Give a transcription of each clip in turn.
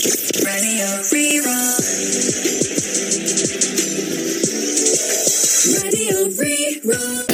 Radio Rí-Rá. Radio Rí-Rá.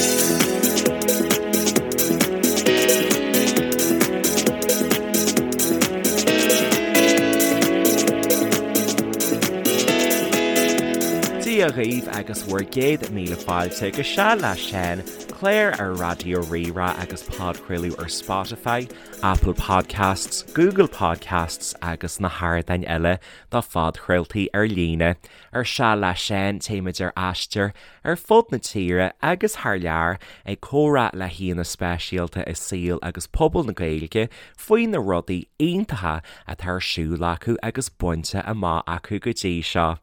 Dia dhaoibh agus bhur gcéad míle fáilte go Seal le Seán, clár ar Raidió Rí-Rá agus podchraoladh ar Spotify, Apple Podcasts, Google Podcasts agus na hardáin eile do phodchraoltaí ar líne. Ar Seal le Seán, téimid ar aistear ar fud na tíre agus thar lear ag comhrá le haíonna speisialta i saol agus pobal na Gaeilge faoi na rudaí iontacha atá ar siúl acu agus bainte amach acu go dtí seo.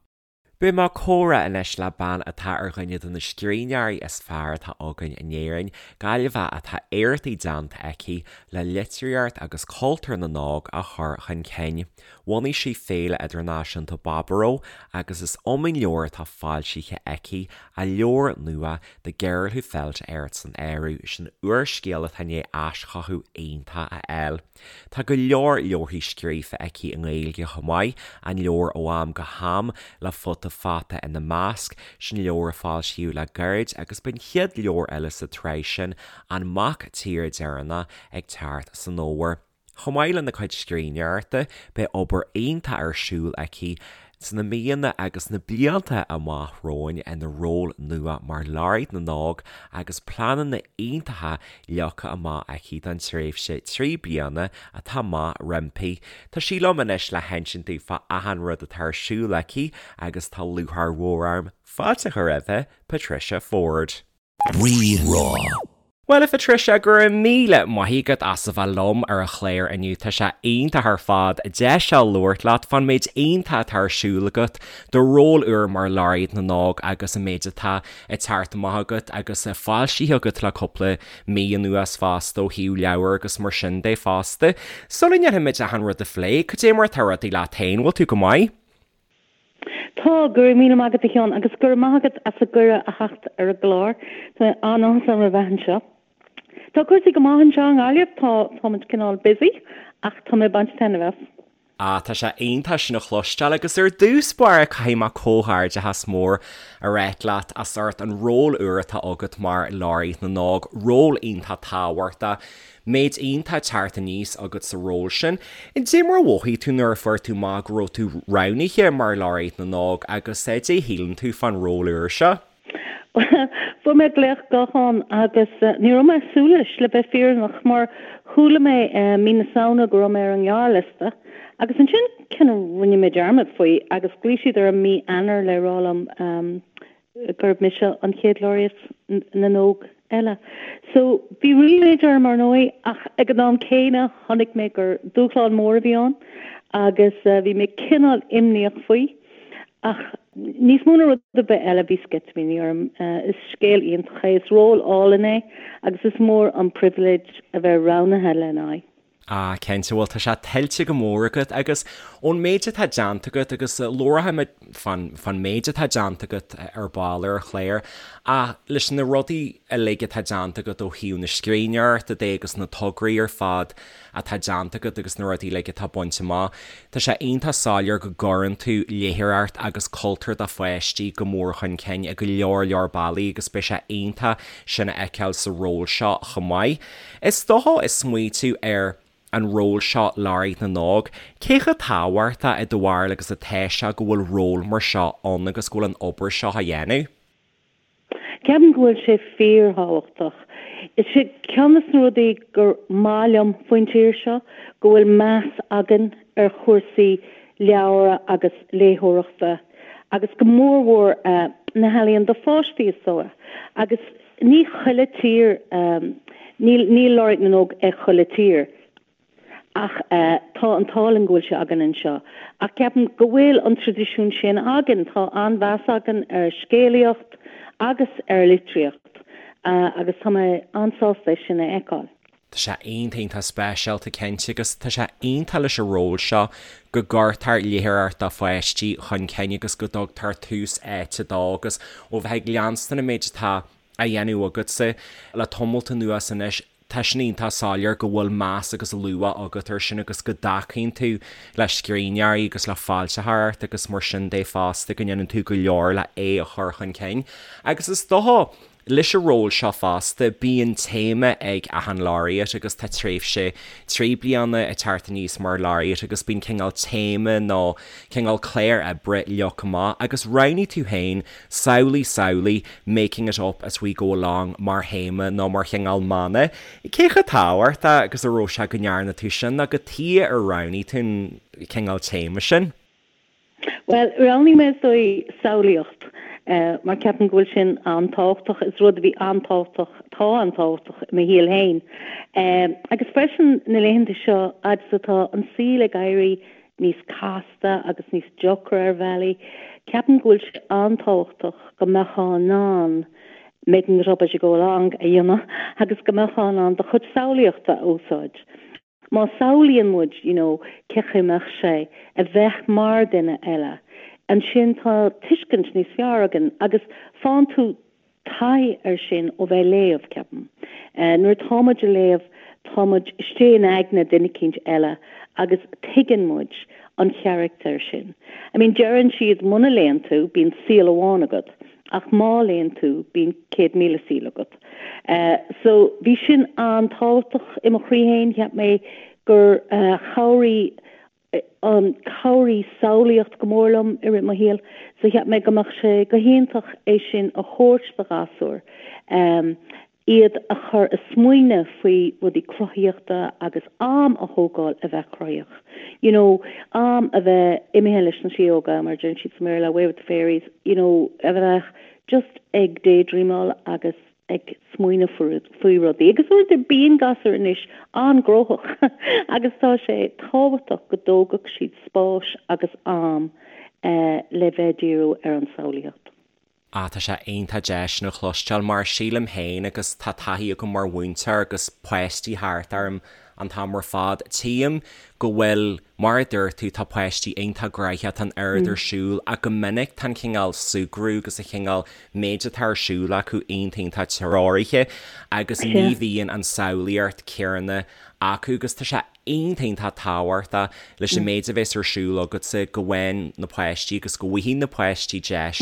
Beidh mé ag comhrá anois le bean atá ar dhuine de na scríbhneoirí is fearr atá againn in Éirinn, Gaillimheach atá éachtaí déanta aici le litríocht agus cultúr na n-óg a chur chun cinn. Bhunaigh sí Féile Idirnáisiúnta Baboró agus is iomaí leabhar atá foilsithe aici, a leabhar nua The Girl Who Felt Earth san áireamh, sin úrscéal atá i ndiaidh aischothú iontach a fháil. Tá go leor leabharthaí scríofa aici i nGaeilge chomh maith, an leabhar Ó Am go hAm le Futa Fata ina measc, sin leabhar a foilsíodh le gairid agus beidh an chéad leabhar eile sa tsraith sin, An Mac Tíre Deireanach, ag teacht san fhómhar. Chomh maith lena cuid scríbhneoireachta, beidh obair iontach ar siúl aici sna míonna agus na blianta amach romhainn ina ról nua mar Laureate na nÓg agus pleananna iontacha leagtha amach aici don tréimhse 3 bliana atá amach roimpi. Tá sí liom anois le hinsint dúinn fá achan rud atá ar siúl aici agus tá lúcháir mhór orm fáilte a chur roimhe, Patricia Forde. Rí-Rá. Bhuel, a Phatricia, go raibh míle maith agat as a bheith liom ar an chlár inniu. Tá sé iontach ar fad deis a labhairt leat fán méid iontach atá ar siúl agat, do ról úr mar Laureate na nÓg agus an méid atá ag teacht amach agat agus foilsithe agat le cúpla mí anuas fosta ó thaobh leabhar agus mar sin de fosta. Sula ndéanfaimid achan rud a phlé, cad é mar atá rudaí leat féin? Bhfuil tú go maith? Tá, go raibh míle maith agat a Sheáin agus go raibh maith agat as an gcuireadh a theacht ar an gclár. Tá an-áthas orm a bheith anseo. Tá cúrsaí go maith anseo i nGaillimh, tá, táimid cineál busy ach tá mé ag baint taitneamh as. Ah, tá sé iontach sin a chloisteáil agus ar dtús báire caithfidh mé comhghairdeachas mór a ráit leat as ucht an ról úr atá agat mar Laureate na nÓg, ról iontach tábhachtach. Méid iontach teacht aníos agat sa ról sin. Dé mar a mhothaigh tú nuair a fuair tú amach go raibh tú roghnaithe mar Laureate na nÓg agus dé shíleann tú fán ról úr seo? Fuair mé glaoch gutháin agus ní raibh mé ag súil leis, le bheith fírinneach, mar chuala mé mí na Samhna go raibh mé ar an ngearrliosta agus ansin kind of rinne mé dearmad faoi agus ghlaoigh siad orm mí Eanáir le rá liom gurb mise an chéad Laureate na nÓg eile. So, bhí ríméad orm, ar ndóigh, ach ag an am céanna chonaic mé gur dúshlán mór a bhí ann agus bhí mé cineál imníoch faoi. Ach níos mó ná rud ar bith eile, bhí sceitimíní orm. Is scéal iontach é, is ról álainn é agus is mór an pribhléid a bheith roghnaithe lena aghaidh. Ah, cinnte, bhuel tá sé tuillte go mór agat agus ón méid atá déanta agat agus labharfaimid fán, fán méid atá déanta agat ar ball ar an chlár ach leis na rudaí uilig atá déanta agat ó thaobh na scríbhneoireachta de agus na tograí ar fad atá déanta agat agus na rudaí uilig atá bainte amach, tá sé iontach soiléir go gcuireann tú léitheoireacht agus cultúr do pháistí go mór chun cinn i go leor leor bealaí agus beidh sé iontach sin a fheiceáil sa ról seo chomh maith. Is dócha ag smaoitiú ar an ról seo Laureate na nÓg, cé chomh tábhachtach i do bharúil agus atá sé go bhfuil ról mar seo ann agus go bhfuil an obair seo á dhéanamh? Ceapaim go bhfuil sé fíorthábhachtach. Is é ceann de na rudaí gur maith liom faoin tír seo go bhfuil meas againn ar chúrsaí leabhra agus léitheoireachta agus go mórmhór na healaíona do pháistí is dóigh. Agus Ní chuile tír, níl, níl Laureate na nÓg ag chuile tír ach tá an t-ádh linn go bhfuil sé againn anseo. Ach ceapaim go bhfuil an traidisiún sin againn, tá an-mheas againn ar scéalaíocht agus ar litríocht agus tá mé an-sásta é sin a fheiceáil. Tá sé iontach iontach speisialta cinnte agus tá sé iontach leis an ról seo go gcuirtear léitheoireacht do pháistí chun cinn agus go dtugtar tús áite dó agus ó bheith ag leanstan an méid atá á dhéanamh agatsa le tamalt anuas anois. Tá sin iontach soiléir go bhfuil meas agus luach agat air sin agus go dtacaíonn tú le scríbhneoirí agus le foilsitheoireacht agus mar sin de fosta, go ndéanann tú go leor le é a chur chun cinn. Agus is dócha, leis an ról seo fosta, bíonn téama ag achan laureate agus tá tréimhse 3 bliana ag teacht aníos mar laureate agus bíonn cineál téama nó cineál clár oibre leagtha amach agus roghnaigh tú féin Samhlaigh, samhlaigh, making it up as we go along mar théama nó mar chineál mana. Cé chomh tábhachtach agus a raibh sé go ndearna tú sin nó cad chuige ar roghnaigh tú an cineál téama sin? Bhuel, roghnaigh mé is dóigh samhlaíocht mar ceapaim go bhfuil sin an-tábhachtach. Is rud a bhí an-tábhachtach, atá an-tábhachtach i mo shaol féin. Agus freisin na laethanta seo, fhad is atá an saol ag éirí níos casta agus níos deacra ar bhealaí. Ceapaim go bhfuil sé an-tábhachtach go mbeifeá in ann making it up as you go along a dhéanamh agus go mbeifeá in ann do chuid samhlaíochta a úsáid. Má samhlaíonn muid you know cé chaoi a mbeadh sé a bheith mar duine eile, ansin tá tuiscint níos fearr againn agus faigheann tú taithí air sin ó bheith ag léamh, ceapaim. Nuair atá muid ag léamh, tá muid istigh in aigne duine eicínt eile agus tuigeann muid an charachtar sin. I mean, deireann siad muna léann tú, bíonn saol amháin agat, ach má léann tú, bíonn 100,000 saol agat. So, bhí sin an-tábhachtach i mo chroí féin, cheap mé gur chabhraigh an chabhraigh samhlaíocht go mór liom i rith mo shaoil so cheap mé go mbeadh sé go hiontach é sin a thabhairt do ghasúir, iad a chur a smaoineamh faoi rudaí cruthaíochta agus am a thógáil a bheith cruthaíoch. You know, am a bheith imithe leis na síóga, mar a deireann siad sa mBéarla, away with the fairies, you know, a bheith just ag daydreamáil agus ag smaoineamh faoi rudaí. Agus uaireanta bíonn gasúir anois an-ghnóthach agus tá sé tábhachtach go dtógfadh siad spáis agus am le bheith ag díriú ar an samhlaíocht. Ah, tá sé iontach deas sin a chloisteáil mar sílim féin agus tá taithí agam mar mhúinteoir agus páistí thart orm an t-am ar fad, tchím go bhfuil, mar a dúirt tú, tá páistí iontach gnoitheach, tá an oiread ar siúl ach go minic tá an cineál súgradh agus an cineál méid atá ar siúl acu iontach iontach treoraithe agus ní bhíonn an samhlaíocht céanna acu agus tá sé iontach iontach tábhachtach leis an méid a bheas ar siúl agatsa go bhfaigheann na páistí agus go bhfaighidh na páistí deis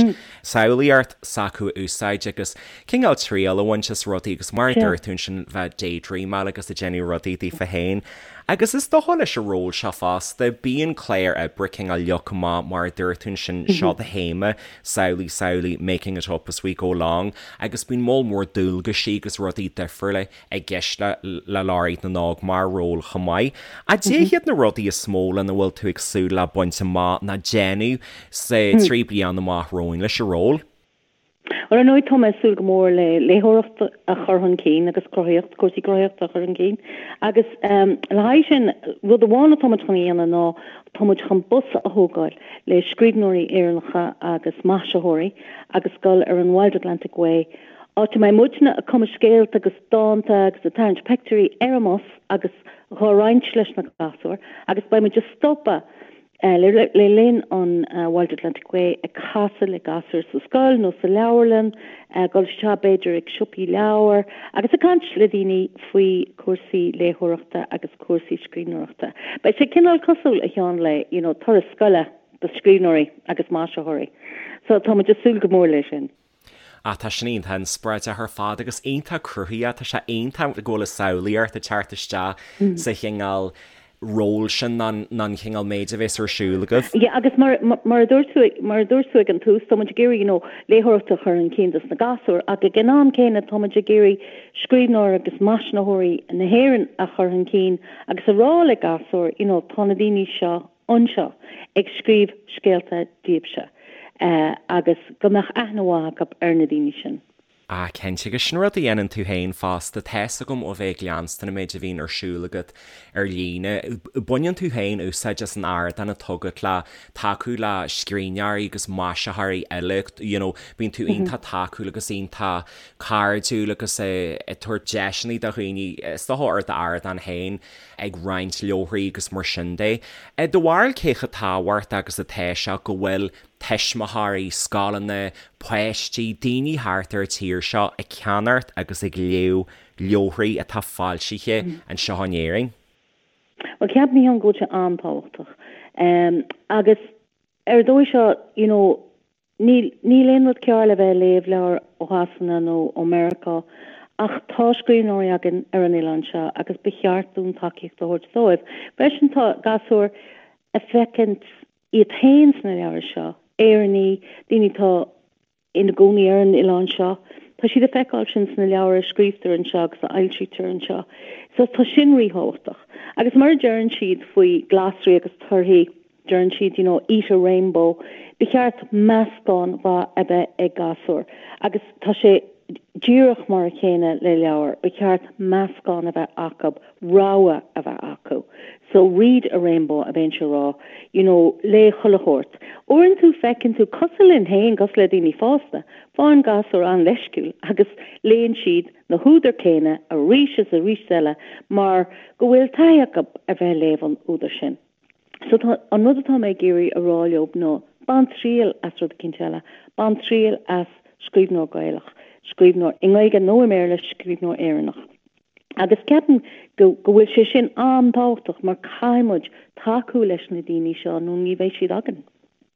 samhlaíocht s'acu a úsáid agus cineál triail a bhaint as rudaí agus mar a dúirt tú ansin bheith daydreamáil agus ag déanamh rudaí daofa féin. Agus is dócha leis an ról seo fosta, bíonn clár oibre cineál leagtha amach mar a dúirt tú ansin, seo do théama, samhlaigh, samhlaigh, making it up as we go along, agus bíonn moll mór dualgaisí agus rudaí difriúla i gceist le le Laureate na nÓg mar ról chomh maith. Cad iad na rudaí is mó lena bhfuil tú ag súil le baint amach ná déanamh sa 3 bliana amach romhainn leis an ról? Ar ndóigh, tá mé ag súil go mór le léitheoireacht a chur chun cinn agus cruthaíocht, cúrsaí cruthaíochta a chur chun cinn. Agus le haghaidh sin, rud amháin atá muid chun a dhéanamh ná tá muid chun bus a thógáil le scríbhneoirí Éireannacha agus maisitheoirí agus dul ar an Wild Atlantic Way, áit a mbeidh muidne ag cumadh scéalta agus dánta agus ag tarraingt peictiúirí ar an mbus agus dhá roinnt leis na gasúir agus beidh muid ag stopadh Le linn an Wild Atlantic Way ag casadh le gasúir sa scoil nó sa leabharlann, dul isteach b'fhéidir ag siopaí leabhar agus ag caint le daoine faoi cúrsaí léitheoireachta agus cúrsaí scríbhneoireachta. Beidh sé cineál cosúil, a Sheáin, le you know turas scoile do scríbhneoirí agus maisitheoirí. So tá muid ag súil go mór leis sin. Ah tá sin iontach inspioráideach ar fad agus iontach cruthaitheach, tá sé iontach go bhfuil an samhlaíocht ag teacht isteach sa chineál ról sin ná an chineál méid a bhéas ar siúl agaibh. Yeah agus mar mar a dúirt tú mar a dúirt tú ag an tús tá muid ag iarraidh you know léitheoireacht a chur chun cinn dos na gasúir ach ag an am céanna tá muid ag iarraidh scríbhneoirí agus maisitheoirí na hÉireann a chur chun cinn agus a rá le gasúir you know tá na daoine seo anseo ag scríobh scéalta daoibhse agus go mbeadh aithne mhaith acu ar na daoine sin. Ah, cinnte, agus sin rud a dhéanann tú féin fosta, tá's agam ó bheith ag leanstan an méid a bhíonn ar siúl agat ar líne. Baineann tú féin úsáid as an ardán atá agat le tacú le scríbhneoirí agus maisitheoirí eile, you know, bíonn tú iontach tacúil agus iontach cairdiúil agus ag tabhairt deiseanna do dhaoine, is dócha ar d'ardán féin. ag roinnt leabharthaí agus mar sin de. I do bharúil cé chomh tábhachtach agus atá sé go bhfuil tuismitheoirí, scoileanna, páistí, daoine thart ar an tír seo ag ceannacht agus ag léamh leabharthaí atá foilsithe anseo in Éirinn? Bhuel, ceapaim féin go bhfuil sé an-tábhachtach. Agus ar an dóigh seo, you know, níl, níl aon rud cearr le bheith ag léamh leabhar ó Shasana nó ó Meiriceá ach tá scríbhneoirí againn ar an oileán seo agus ba cheart dúinn tacaíocht a thabhairt dóibh. Freisin tá gasúir ag feicint iad féin sna leabhair seo, Éireannaigh, daoine atá ina gcónaí ar an oileán seo. Tá siad ag feiceáil sin sna leabhair a scríobhtar anseo agus a fhoilsítear anseo. So tá sin ríthábhachtach. Agus mar a deireann siad faoi glasraí agus torthaí, deireann siad, you know, eat a rainbow, ba cheart meascán mhaith a bheith ag gasúir. Agus tá sé díreach mar a chéanna le leabhair, ba cheart meascán a bheith acu rogha a bheith acu. So read a rainbow a bheinnse a rá, you know, léigh chuile shórt. Uaireanta feiceann tú, cosúil linn féin, cosúil le daoine fásta, faigheann gasúir an-leisciúil agus léann siad na húdair céanna arís is arís eile mar go bhfuil taithí acu ar bheith ag léamh an údair sin. So tá, an rud atá mé ag iarraidh a rá leo ná bain triail as rud eicínt eile, bain triail as scríbhneoir Gaelach, scríbhneoir i nGaeilge nó i mBéarla, scríbhneoir Éireannach. Agus ceapaim go go bhfuil sé sin an-tábhachtach mar caithfidh muid tacú leis na daoine seo nó ní bheidh siad againn.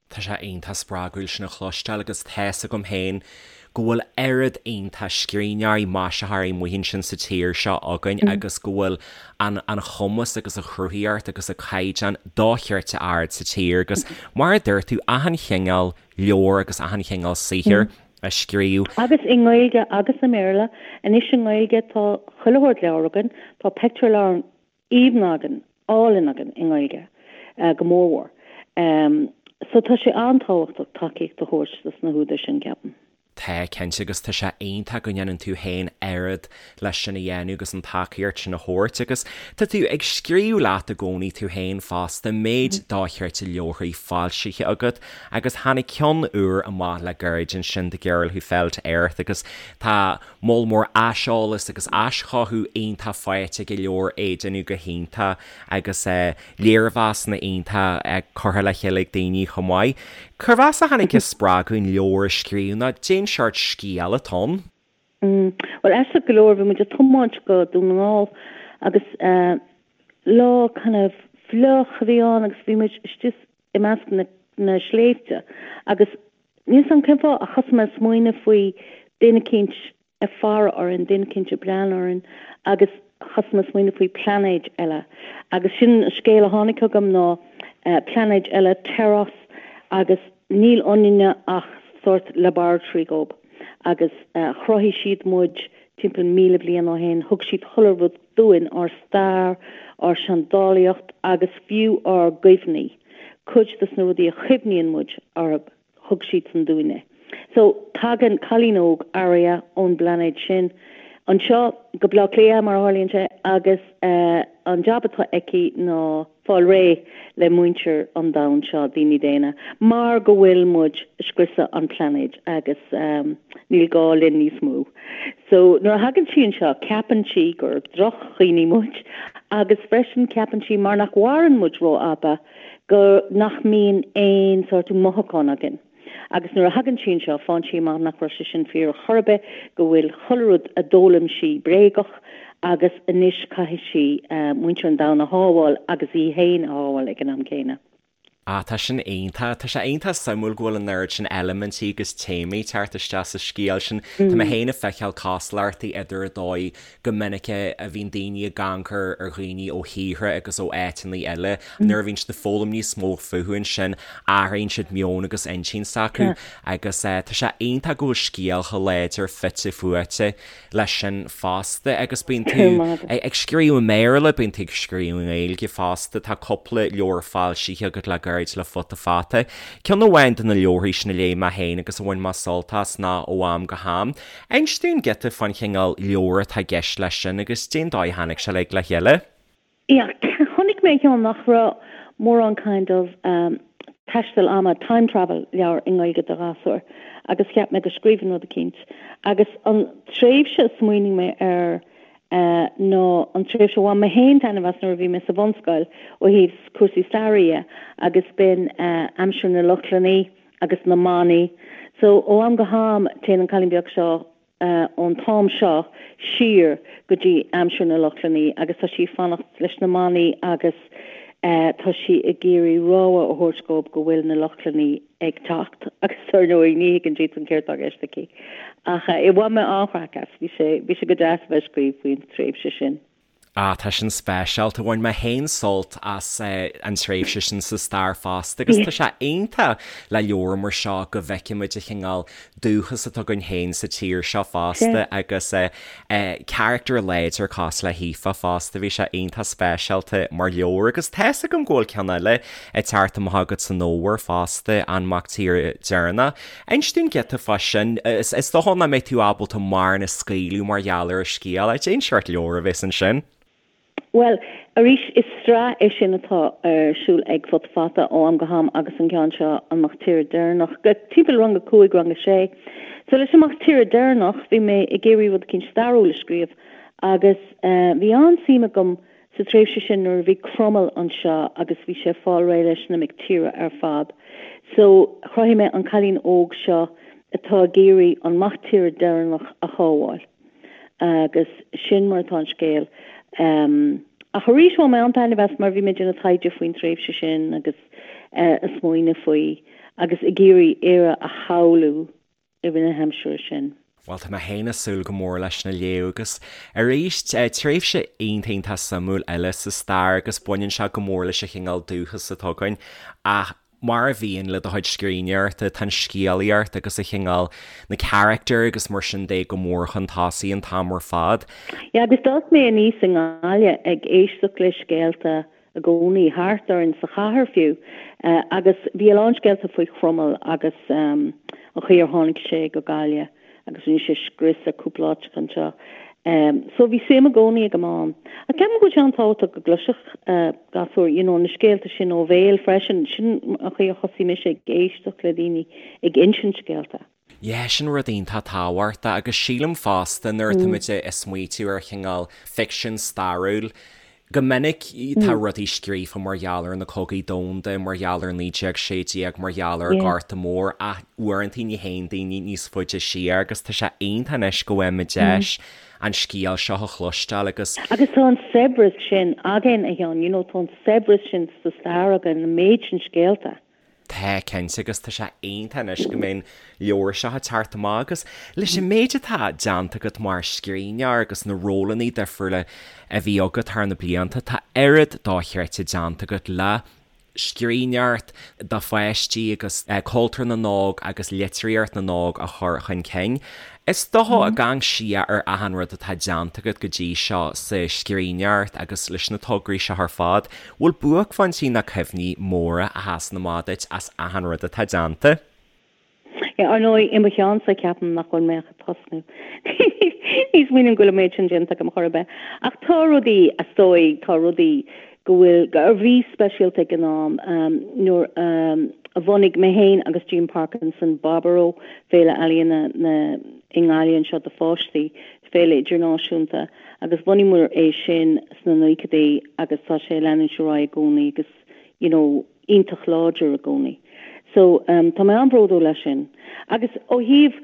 Tá sé iontach spreagúil sin a chloisteáil agus tá's agam féin go bhfuil oiread iontach scríbhneoirí, maisitheoirí amuigh ansin sa tír seo againn agus go bhfuil an an chumas agus an chruthaíocht agus an caighdeán dochreidte ard sa tír agus mar a dúirt tú achan chineál leabhar agus achan chineál saothair a scríobh. Agus i nGaeilge agus i mBéarla. Anois i nGaeilge tá chuile shórt leabhar againn, tá pictiúrleabhar aoibhinn againn, álainn againn i nGaeilge go mórmhór. So tá sé an-tábhachtach tacaíocht a thabhairt dos na húdair sin, ceapaim. Tá, cinnte, agus tá sé iontach go ndéanann tú féin oiread leis sin a dhéanamh agus an tacaíocht sin a thabhairt agus tá tú ag scríobh leat i gcónaí tú féin fosta, méid dochreidte leabharthaí foilsithe agat agus tháinig ceann úr amach le gairid ansin The Girl Who Fell to Earth agus tá moll mór aiseolas agus aischothú iontach faighte ag an leabhar, é ag déanamh go hiontach agus léirmheasanna iontach curtha le chéile ag daoine chomh maith. Cérbh as a tháinig an spreagadh an leabhar a scríobh nó cén seort scéal atá ann? Bhuel, aisteach go leor, bhí muid ag tiomáint go Dún na nGall agus lá kind of fliuch a bhí ann agus bhí muid istigh i measc na na sléibhte agus níl 's a'm cén fáth ach thosaigh mé ag smaoineamh faoi duine eicínt ag faire orainn, duine eicínt ag breathnú orainn agus thosaigh mé ag smaoineamh faoi plainéid eile agus sin an scéal a tháinig chugam ná plainéid eile, Teros, agus níl ionainne ach sórt laboratory dhób agus chruthaigh siad muid timpeall 1,000 bliain ó shin, thug siad chuile rud dúinn, ár stair, ár seandálaíocht agus fiú ár gcuimhní, cuid dos na rudaí a chuimhníonn muid orthu, thug siadsan dúinn é. So, tagann cailín óg, Aria, ón bplainéad sin anseo go Baile Átha Cliath, mar a tharlaíonn sé, agus an jab atá aici ná fáil réidh le muintir an domhain seo, daoine daonna, mar go bhfuil muid ag scriosadh an phlainéid agus níl gá linn níos mó. So, nuair a thagann sí anseo, ceapann sí gur drochdhaoine muid agus freisin ceapann sí mar nach mhaireann muid rófhada, go nach mbíonn aon sórt mothúchán againn. Agus nuair a thagann sí anseo, faigheann sí amach nach raibh sé sin fíor ar chor ar bith, go bhfuil chuile rud a d'fhoghlaim sí bréagach agus anois caithfidh sí muintir an domhain a shábháil agus í féin a shábháil ag an am céanna. Ah, tá sin iontach. Tá sé iontach suimiúil go bhfuil an oiread sin eilimintí agus téamaí ag teacht isteach sa scéal sin. Tá mé féin ag feiceáil cosúlachtaí idir an dóigh go minic a bhíonn daoine ag amharc ar dhaoine ó thíortha agus ó áiteanna eile, nuair a bhíonn siad ag foghlaim níos mó fúthu ansin, athraíonn siad meon agus intinn s'acu agus tá sé iontach go bhfuil scéal chomh láidir fite fuaite leis sin fosta agus bíonn tú ag scríobh i mBéarla, bíonn tú ag scríobh i nGaeilge fosta, tá cúpla leabhar foilsithe agat le gairid le Futa Fata. Ceann amháin de na leabharthaí sin a léigh mé féin agus a bhain mé sult as ná Ó Am go hAm. Inis dúinn giota fán chineál leabhair atá i gceist leis sin agus cén dóigh a tháinig sé uilig le chéile. Yeah, chonaic mé cheana nach raibh mórán kind of taisteal ama, time travel leabhar i nGaeilge do ghasúir agus cheap mé go scríobhfainn rud eicínt. Agus an tréimhse a smaoinigh mé air ná an tréimhse a bhain mé féin taitneamh as nuair a bhí mé sa bhunscoil ó thaobh cúrsaí staire dhe agus b'in aimsir na Lochlannaí agus na manaigh. So ó am go ham téann an cailín beag seo. ón t-am seo siar go dtí aimsir na Lochlannaí agus tá sí ag fanacht leis na manaigh agus tá sí ag iarraidh rabhadh a thabhairt dóibh go bhfuil na Lochlannaí ag teacht agus ar ndóigh ní thuigeann siadsan céard tá i gceist aici. Ach bhain mé an-chraic as, bhí sé, bhí sé go deas a bheith ag scríobh faoin tréimhse sin. Ah, tá sin speisialta. Bhain mé féin sult as an tréimhse sin sa stair fosta agus tá sé iontach le leabhar mar seo go bhfeicimid an chineál dúchas atá againn féin sa tír seo fosta agus carachtar láidir cosúil le hAoife fosta. Bhí sé iontach speisialta mar leabhar agus tá's agam go bhfuil ceann eile ag teacht amach agat san fhómhar fosta, An Mac Tíre Deireanach. Inis dúinn giota fá sin. Is dócha nach mbeidh tú ábalta mórán a scaoileadh mar gheall ar an scéal. Cén seort leabhar a bheas ansin? Bhuel, arís, is sraith é sin atá ar siúl ag Futa Fata ó am go ham agus an ceann seo, An Mac Tíre Deireanach, timpeall rang a 5, rang a 6. So leis an Mac Tíre Deireanach, bhí mé ag iarraidh rud eicínt stairiúil a scríobh agus bhí an-suim agam Sa tréimhse sin nuair a bhí Cromail anseo agus bhí sé ag fáil réidh leis na mic tíre ar fad. So chruthaigh mé an cailín óg seo atá ag iarraidh an mac tíre deireanach a shábháil. Agus sin mar atá an scéal. Ach arís bhain mé an-taitneamh as mar bhí mé ag déanamh taighde faoin tréimhse sin agus ag smaoineamh faoi agus ag iarraidh Éire a shamhlú. i rith na haimsire sin. Bhuel, tá mé féin ag súil go mór leis sin a léamh agus arís, tréimhse iontach iontach suimiúil eile sa stair agus baineann sé go mór leis an chineál dúchas atá againn ach mar a bhíonn le do chuid scríbhneoireachta, tá an scéalaíocht agus an chineál, na carachtair agus mar sin de go mór chun tosaigh an t-am ar fad. Yeah, agus d'fhás mé aníos i nGaillimh ag éisteacht le scéalta i gcónaí, thart orainn sa chathair fiú, agus bhí a lán scéalta faoi Chromail agus an chaoi ar tháinig sé go Gaillimh agus rinne sé scrios ar cúpla áiteacha anseo. So bhí suim i gcónaí agam ann. Ach ceapaim go bhfuil sé an-tábhachtach go gcloisfeadh gasúir, you know, na scéalta sin ó bhéal freisin. Sin an chaoi a thosaigh mise ag éisteacht le daoine ag insint scéalta. Yeah, sin rud iontach tábhachtach agus sílim fosta nuair atá muid ag smaoitiú ar chineál ficsean stairiúil, go minic tá rudaí scríofa mar gheall ar na cogaí domhanda, mar gheall ar 1916, mar gheall ar an Ghorta Mór ach uaireanta ní théann daoine níos faide siar agus tá sé iontach anois go bhfaighimid deis an scéal seo a chloisteáil agus Agus tá an saibhreas sin againn, a Sheáin, you know, tá an saibhreas sin sa stair againn, an méid sin scéalta. Tá, cinnte, agus tá sé iontach anois go mbeidh an leabhar seo ag teacht amach agus leis an méid atá déanta agat mar scríbhneoir agus na rólanna difriúla a bhí agat thar na blianta, tá oiread dochreidte déanta agat le scríbhneoireacht do pháistí agus cultúr na n-óg agus litríocht na n-óg a chur chun cinn. Is dócha ag amharc siar ar achan rud atá déanta agat go dtí seo sa scríbhneoireacht agus leis na tograí seo ar fad, bhfuil buaicphointí nó cuimhní móra a sheasann amach duit as achan rud atá déanta? Yeah, ar ndóigh, i mo cheannsa ceapaim nach bhfuil mé ach ag tosnú. Ní smaoiním go bhfuil an méid sin déanta agam chor ar bith. Ach tá rudaí, is dóigh, tá rudaí go bhfuil, a bhí speisialta ag an am, nuair a bhunaigh mé féin agus Jean Parkinson Baboró, Féile Ealaíona na i nGaillimh anseo do pháistí, féile idirnáisiúnta, agus bhunaíomar é sin sna naochadaí agus tá sé ag leanúint ar aghaidh i gcónaí agus you know iontach láidir i gcónaí. So tá mé an-bhródúil as sin. Agus ó thaobh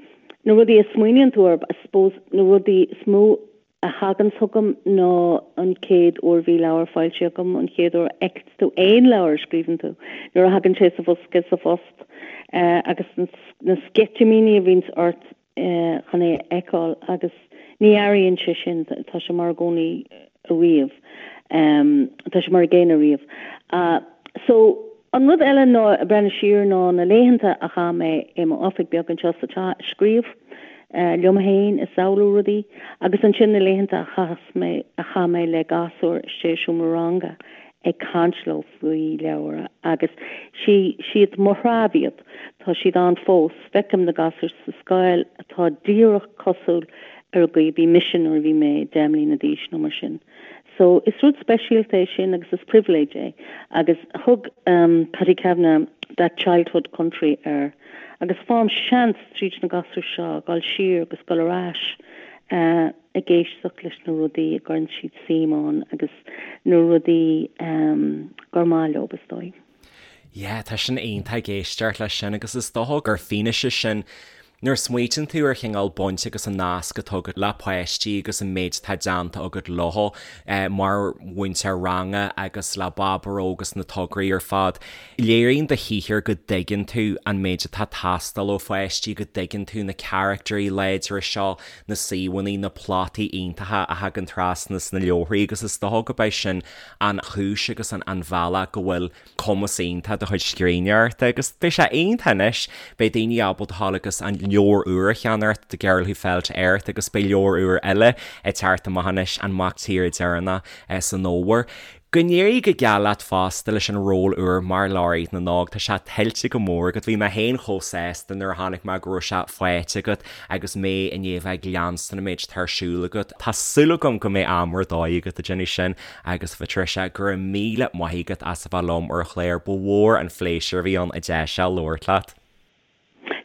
na rudaí a smaoiníonn tú orthu, I suppose na rudaí is mó a thagann chugam ná an chéad uair a bhí leabhar foilsithe agam, an chéad uair a fheiceann tú aon leabhar a scríobhann tú, nuair a thagann sé sa bhosca sa phost agus na sceitimíní a bhíonns ort chun é a fheiceáil agus ní athraíonn sé sin, tá sé mar i gcónaí ariamh, tá sé mar an gcéanna ariamh. So, an rud eile ná ag breathnú siar ná na laethanta a chaith mé i m'oifig beag anseo sa teach ag scríobh liom féin, ag samhlú rudaí agus ansin na laethanta a chaith mé, a chaith mé le gasúir istigh i seomra ranga ag caint leo faoi leabhra agus sí, siad mo threabh iad, tá siad ann fós, feicim na gasúir sa scoil atá díreach cosúil ar an gcaoi a bhí mise nuair a bhí mé 10 mbliana d'aois nó mar sin. So is rud speisialta é sin agus is pribhléid é agus thug Paddy Kavanagh that childhood country air agus faighim seans tríd na gasúir seo dul siar agus dul ar ais ag éisteacht leis na rudaí a gcuireann siad suim ann agus na rudaí gur maith leo, is dóigh. Yeah, tá sin iontach ag éisteacht leis sin agus is dócha gur fianaise sin. Nuair a smaoitíonn tú ar chineál baint agus an nasc atá agat le páistí agus an méid atá déanta agat leo mar mhúinteoir ranga agus le Baboró agus na tograí ar fad, léiríonn do shaothar go dtuigeann tú an méid atá ag teastáil ó pháistí, go dtuigeann tú na caractairí láidre seo, na suíomhanna, na plotaí iontacha a thagann trasna sna leabharthaí agus is dócha gurb é sin an chúis agus an bealach go bhfuil cumas iontach do chuid scríbhneoireachta agus beidh sé iontach anois, beidh daoine ábalta dhul agus an leabhar úr a cheannacht, The Girl Who Fell to Earth agus beidh leabhar úr eile ag teacht amach anois, An Mac Tíre Deireanach, san fhómhar. Go n-éirí go geal leat fosta leis an ról úr mar Laureate na nÓg, tá sé tuillte go mór agat, bhí mé féin chomh sásta nuair a chonaic mé go raibh sé faighte agat agus mé i ndiaidh a bheith ag leanstan an méid atá ar siúl agat, tá súil agam go mbeidh am ar dóigh agat ag déanamh sin. Agus a Phatricia, go raibh míle maith agat as a bheith liom ar an chlár, ba mhór an phléisiúr a bhí ann an deis seo labhairt leat.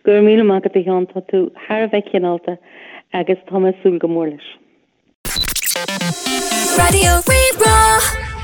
Go raibh míle maith agat a Sheáin, tá tú thar a bheith cineálta agus tá mé ag súil go mór leis. Raidió Rí-Rá.